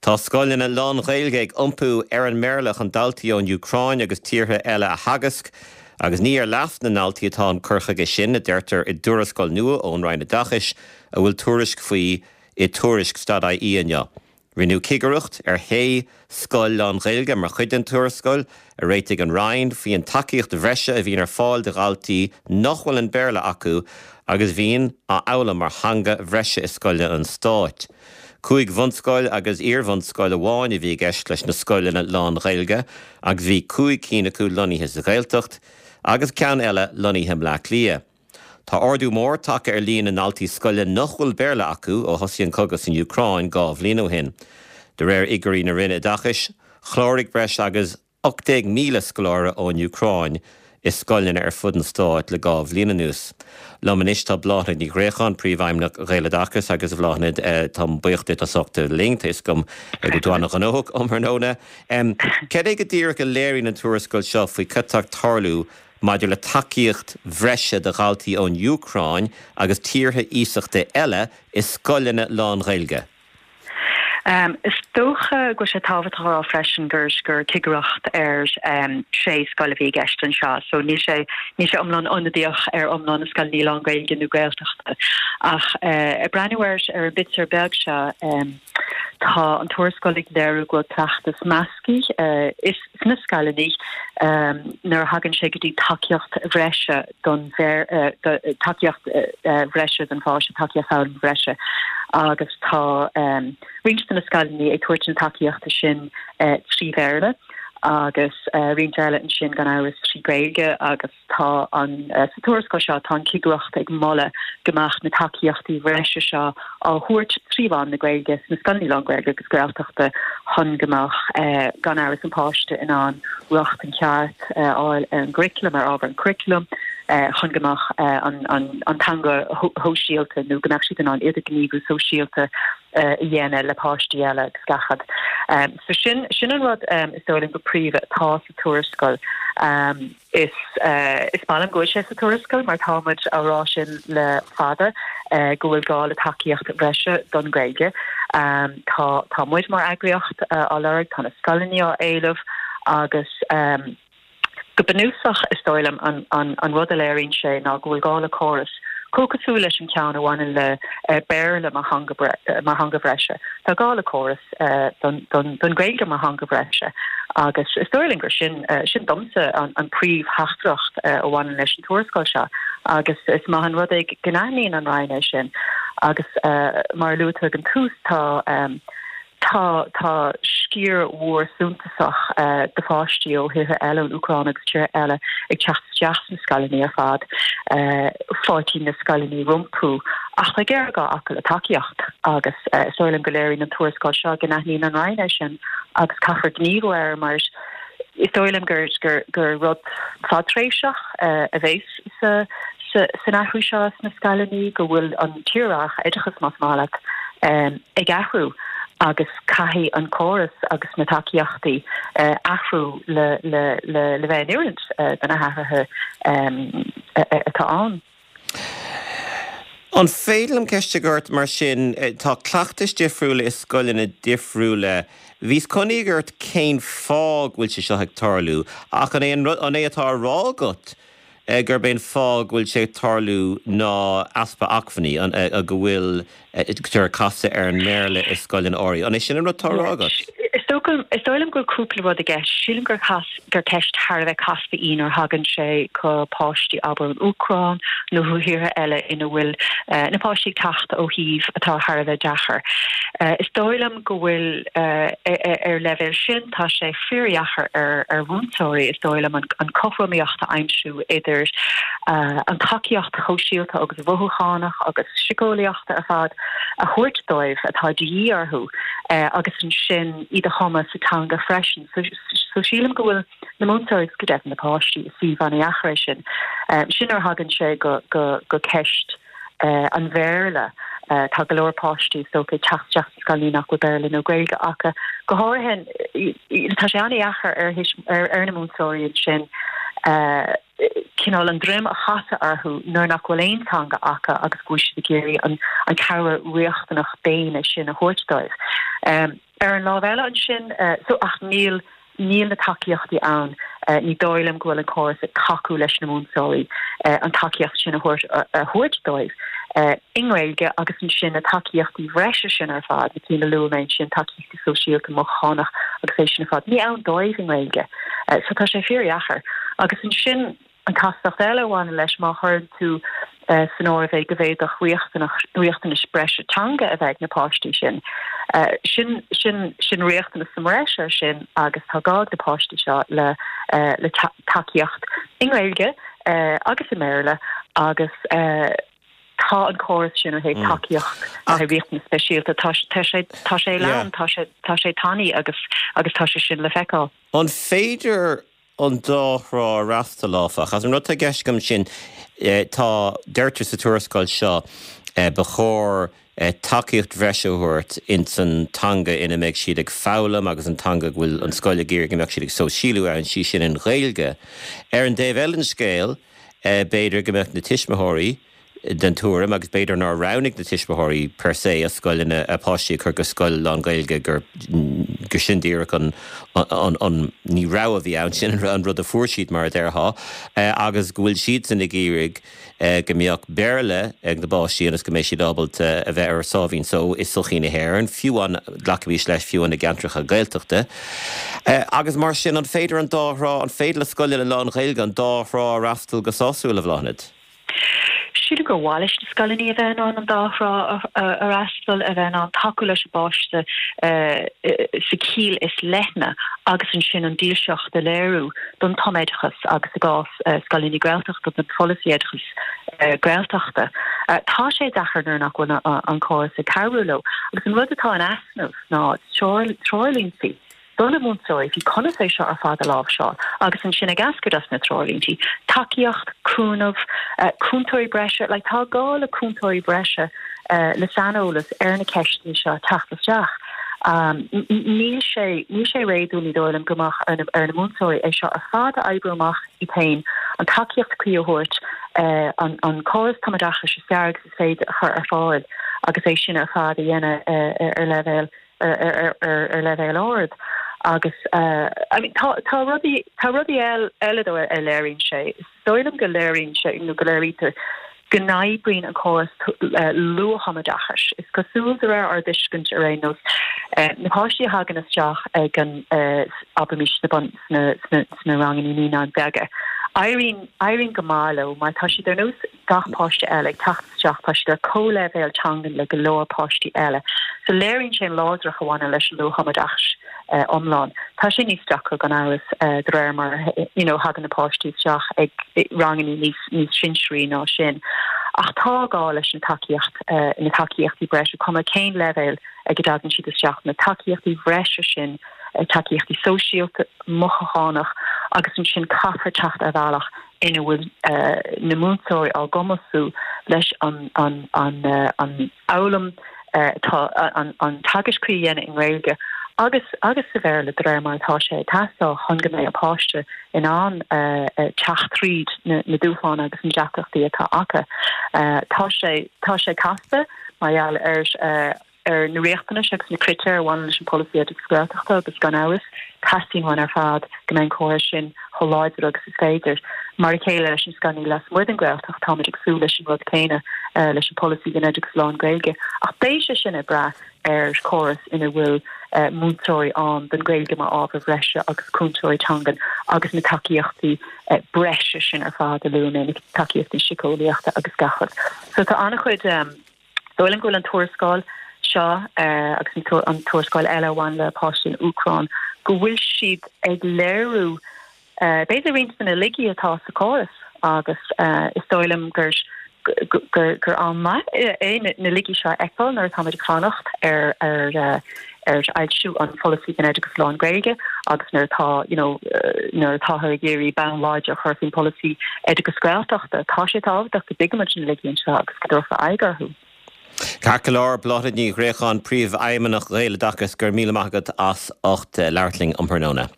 Tá scoileanna lán-Ghaeilge ag iompú ar an mBéarla chun daltaí ón Úcráin agus tíortha eile a theagasc, agus ní ar leas na ndaltaí atá an cur chuige sin, a deirtear i dtuarascáil nua ón Roinn Oideachais a bhfuil tuairisc faoi i Tuairisc dot ie inniu. Rinneadh cigireacht ar shé scoil lán-Ghaeilge mar chuid den tuarascáil a réitigh an Roinn faoin tacaíocht bhreise a bhíonn ar fáil do dhaltaí nach bhfuil an Béarla acu agus a bhíonn á fhoghlaim mar theanga bhreise i scoileanna an stáit. Cúig bhunscoil agus iar-bhunscoil amháin a bhí i gceist leis na scoileanna lán-Ghaeilge agus bhí cúig cinn acu lonnaithe sa Ghaeltacht agus ceann eile lonnaithe i mBleá Cliath. Tá ardú mór tagtha ar líon na ndaltaí scoile nach bhfuil Béarla acu ó thosaigh an cogadh san Úcráin 2 bhliain ó shin. De réir fhigiúirí na Roinne Oideachais, chláraigh breis agus 18,000 scoláire ón Úcráin i scoileanna ar fud an stáit le 2 bhliain anuas. Liom anois tá Bláthnaid Ní Ghréacháin, Príomhfheidhmeannach Ghaeloideachas agus a Bhláthnaid, táim buíoch duit as ucht a bheith linn, tá 'fhios agam go bhfuil tú an-ghnóthach um thráthnóna. Cad é go díreach a léiríonn an tuarascáil seo faoi cad tá ag tarlú maidir le tacaíocht bhreise do dhaltaí ón Úcráin agus tíortha iasachta eile i scoileanna lán-Ghaeilge. Is dócha go bhfuil sé tábhachtach a rá freisin gur gur cigireacht ar sé scoil a bhí i gceist anseo so níl sé níl sé iomlán ionadaíoch ar iomlán na scoileanna lán-Ghaeilge nó Gaeltachta. Ach ag breathnú ar ar an bpictiúr beag seo tá an tuarascáil ag léiriú go bhfuil cleachtas measctha is sna scoileanna nuair a thagann sé go dtí tacaíocht bhreise don tacaíocht bhreise don pháiste, tacaíocht foghlama bhreise agus tá roinnt de na scoileanna ag tabhairt na tacaíochta sin trí Bhéarla agus roinnt eile ansin gan amhras trí Ghaeilge agus Tá an, sa tuarascáil seo, tá an chigireacht ag moladh go mbeadh na tacaíochtaí bhreise seo á thabhairt trí mheán na Gaeilge sna scoileanna lán-Ghaeilge agus Gaeltachta chun go mbeadh, gan amhras, an páiste in ann rochtain cheart a fháil ar an gcuraclam, ar ábhar an churaclaim, chun go mbeadh an teanga shóisialta nó go mbeadh siad in ann idirghníomhú sóisialta a dhéanamh le páistí eile agus gach rud. So sin, sin an rud is dóigh liom go príomha atá sa tuarascáil. Is is maith liom go bhfuil sé sa tuarascáil mar tá muid á rá sin le fada go bhfuil gá le tacaíocht bhreise don Ghaeilge. Tá tá muid mar eagraíocht á lorg, tá na scoileanna á éileamh agus go bunúsach is dóigh liom an an an rud a léiríonn sé ná go bhfuil gá le córas chomh cosúil leis an ceann a bhaineann le Béarla mar theanga mar theanga bhreise. Tá gá le córas. don Ghaeilge mar theanga bhreise agus is dóigh liom gur sin, sin domsa an príomhtheachtaireacht a bhaineann leis an tuarascáil seo agus is maith an rud é go n-aithníonn an Roinn é sin agus mar a luaigh tú ag an tús tá tá tá sciar mhór suntasach de pháistí ó thíortha eile, ón Úcráin agus tíortha eile ag teacht isteach sna scoileanna ar fad, fáiltíonn na scoileanna rompu ach tá géarghá acu le tacaíocht agus is dóigh liom go léiríonn an tuarascáil seo go n-aithníonn an Roinn é sin agus caithfear gníomhú air mar is dóigh liom gur gur gur rud fadtréimhseach a bheas sa sa san athrú seo sna scoileanna go bhfuil an tírdhreach oideachais más maith leat ag athrú agus caithfidh an córas agus na tacaíochtaí athrú le le le le bheith in oiriúint do na hathruithe atá ann. An féidir liom ceist a chur ort mar sin, tá cleachtais difriúla i scoileanna difriúla. Bhíos chun iarraidh ort cén fáth go bhfuil sé seo ag tarlú, ach an é an rud, an é atá á rá agat gurb é an fáth go bhfuil sé ag tarlú ná easpa acmhainní, an, go bhfuil ag casadh ar an mBéarla i scoileanna áirithe. An é sin an rud atá á rá agat? Is dócha, is dóigh liom go bhfuil cúpla rud i gceist. Sílim gur gur ceist thar a bheith casta í nuair a thagann sé go páistí, abair ón Úcráin nó ó thíortha eile ina bhfuil na páistí ag teacht ó shuímh atá thar a bheith deacair. Is dóigh liom go bhfuil ar leibhéal sin, tá sé fíordheacair ar ar mhúinteoirí, is dóigh liom, an cothromaíocht a aimsiú idir an tacaíocht shóisialta agus mhothúchánach agus síceolaíoch ar fad a thabhairt dóibh atá de dhíth orthu agus ansin iad a thumadh sa teanga freisin. So sílim go bhfuil na múinteoirí agus go deimhin na páistí i suíomh an-dheacair é sin. Sin nuair a thagann sé go go ceist an Bhéarla. Tá go leor páistí is dócha ag teacht isteach sna scoileanna nach bhfuil Béarla nó Gaeilge acu. Go háirithe tá sé an-dheacair ar ar na múinteoirí ansin. Cineál an droim a chasadh orthu nuair nach bhfuil aon teanga acu agus go bhfuil siad ag iarraidh an cabhair riachtanach daonna sin a thabhairt dóibh. Ar an lámh eile ansin, so ach níl, níl na tacaíochtaí ann, ní dóigh liom go bhfuil an córas ag tacú leis na múinteoirí an tacaíocht sin a thabhairt a thabhairt dóibh i nGaeilge agus ansin na tacaíochtaí bhreise sin ar fad, na cinn a luaigh mé ansin, tacaíochtaí sóisialta, mothúchánach agus é sin ar fad. Ní ann dóibh i nGaeilge. So tá sé fíordheacair. Agus ansin an chastacht eile a bhaineann leis, má chuireann tú san áireamh é go bhféadfadh riachtanais breise teanga a bheith ag na páistí sin, sin, sin, sin riachtanas sa mbreis air sin agus tá gá ag na páistí seo le, le tacaíocht i nGaeilge agus i mBéarla agus. Tá an córas sin ó thaobh tacaíocht le haghaidh riachtanas speisialta, tá sé tá sé lán, tá sé tá sé tanaí agus agus tá sé sin le feiceáil. An féidir an dá thrá a fhreastal, áfach? Agus an rud atá i gceist agam sin, tá, deirtear sa tuarascáil seo, ba chóir tacaíocht bhreise a thabhairt ins an teanga ina mbeidh siad ag foghlaim agus an teanga go bhfuil an scoil ag iarraidh go mbeadh siad ag sóisialú ann, sí sin an Ghaeilge. Ar an dtaobh eile den scéal, B'fhéidir go mbeadh na tuismitheoirí den tuairim, agus b'fhéidir nár roghnaigh na tuismitheoirí per se a scoileanna, a páistí a chur go scoil lán-Ghaeilge, gur, gur sin díreach an, an, an, ní rogha a bhí ann, sin an rud a fuair siad mar a déarfá, agus go bhfuil siadsan ag iarraidh go mbeadh Béarla ag na bpáistí ionas go mbeidh siad ábalta a bheith ar a sáimhín só i sochaí na hÉireann, fiú amháin, glacaimis leis, fiú amháin i gceantracha Gaeltachta. Agus mar sin, an féidir an dá thrá, an féidir le scoileanna lán-Ghaeilge an dá thrá a fhreastal go sásúil, a Bhláthnaid? Sílim gur mhaith leis na scoileanna a bheith in ann an dá thrá a fhreastal, a bheith in ann tacú leis an bpáiste sa chiall is leithne agus ansin an dílseacht a léiriú don tumoideachas agus i gcás scoileanna Gaeltachta don pholasaí oideachais Gaeltachta. Tá sé deacair nuair nach bhfuil an córas ag cabhrú leo. Agus an rud atá in easnamh ná treoirlínte do na múinteoirí faoi conas é seo ar fad a láimhseáil agus ansin ag eascairt as na treoirlíntí, tacaíocht, cúnamh, cúntóirí breise, like tá gá le cúntóirí breise le saineolas ar na ceisteanna seo teacht isteach. Níl sé, níl sé réadúil, ní dóigh liom, go mbeadh ar na, ar na múinteoirí é seo ar fad a oibriú amach iad féin, an tacaíocht cuí a thabhairt, an, an córas tumoideachais is fearr agus is féidir a chur ar fáil agus é sin ar fad a dhéanamh ar leibhéal ar leibhéal ard agus I mean tá tá rudaí tá rudaí eile though a léiríonn sé. Is dóigh liom go léiríonn sé nó go léirítear go n-oibríonn an córas luath-thumoideachais. Is cosúil de réir ár dtuiscint ar aon nós na páistí a thagann isteach ag an abraimis sna sna sna sna ranganna naíonáin bheaga éiríonn éiríonn go maith leo mar tá siad ar nós gach páiste eile ag teacht isteach, tá siad ar comhleibhéal teangan le go leor páistí eile. So léiríonn sé an láidreacht a bhaineann leis an luath-thumoideachas iomlán. Tá sé níos deacra gan amhras de réir mar you know thagann na páistí isteach ag ranganna níos níos sinsearaí ná sin. Ach tá gá leis an tacaíocht, na tacaíochtaí breise, cuma cén leibhéal ag a dtagann siad isteach, na tacaíochtaí bhreise sin, tacaíochtaí sóisialta, mothúchánach agus ansin caithfear teacht ar bhealach ina bhfuil na múinteoirí á gcumasú leis an fhoghlaim atá an teagasc cuí a dhéanamh i nGaeilge agus agus sa Bhéarla de réir mar atá sé ag teastáil chun go mbeidh an páiste in ann teacht tríd na dúshláin agus na deacrachtaí atá acu. Tá sé tá sé casta mar gheall ar ar na riachtanais agus na critéir a bhaineann leis an bpolasaí oideachais Gaeltachta agus gan amhras, teastaíonn uainn ar fad go mbeidh an córas sin chomh láidir agus is féidir. Mar a chéile leis na scoileanna lasmuigh den Ghaeltacht, táimid ag súil leis an rud céanna leis an bpolasaí don oideachas lán-Ghaeilge. Ach beidh sé sin ag brath ar chóras ina bhfuil múinteoirí ann don Ghaeilge mar ábhar bhreise agus cúntóirí teangan agus na tacaíochtaí breise sin ar fad a luaigh mé, na tacaíochtaí síceolaíochta agus gach rud. So tá an-chuid. Dóigh liom go bhfuil an tuarascáil seo agus an tuarascáil eile a bhain le páistí na Úcráine, go bhfuil siad ag léiriú b'fhéidir roinnt de na laigí atá sa chóras agus is dóigh liom gur gur am maith é na laigí seo a fheiceáil nuair atáimid ag fanacht ar ar ar fhoilsiú an pholasaí don oideachas lán-Ghaeilge agus nuair atá you know nuair atáthar ag iarraidh bonn láidir a chur faoin pholasaí oideachas Gaeltachta, tá sé tábhachtach go dtuigimid na laigí anseo agus go dtabharfar aghaidh orthu. Ceart go leor, Bláthnaid Ní Ghréacháin, Príomhfheidhmeannach Ghaeloideachas, go raibh míle maith agat as ucht labhairt linn um thráthnóna.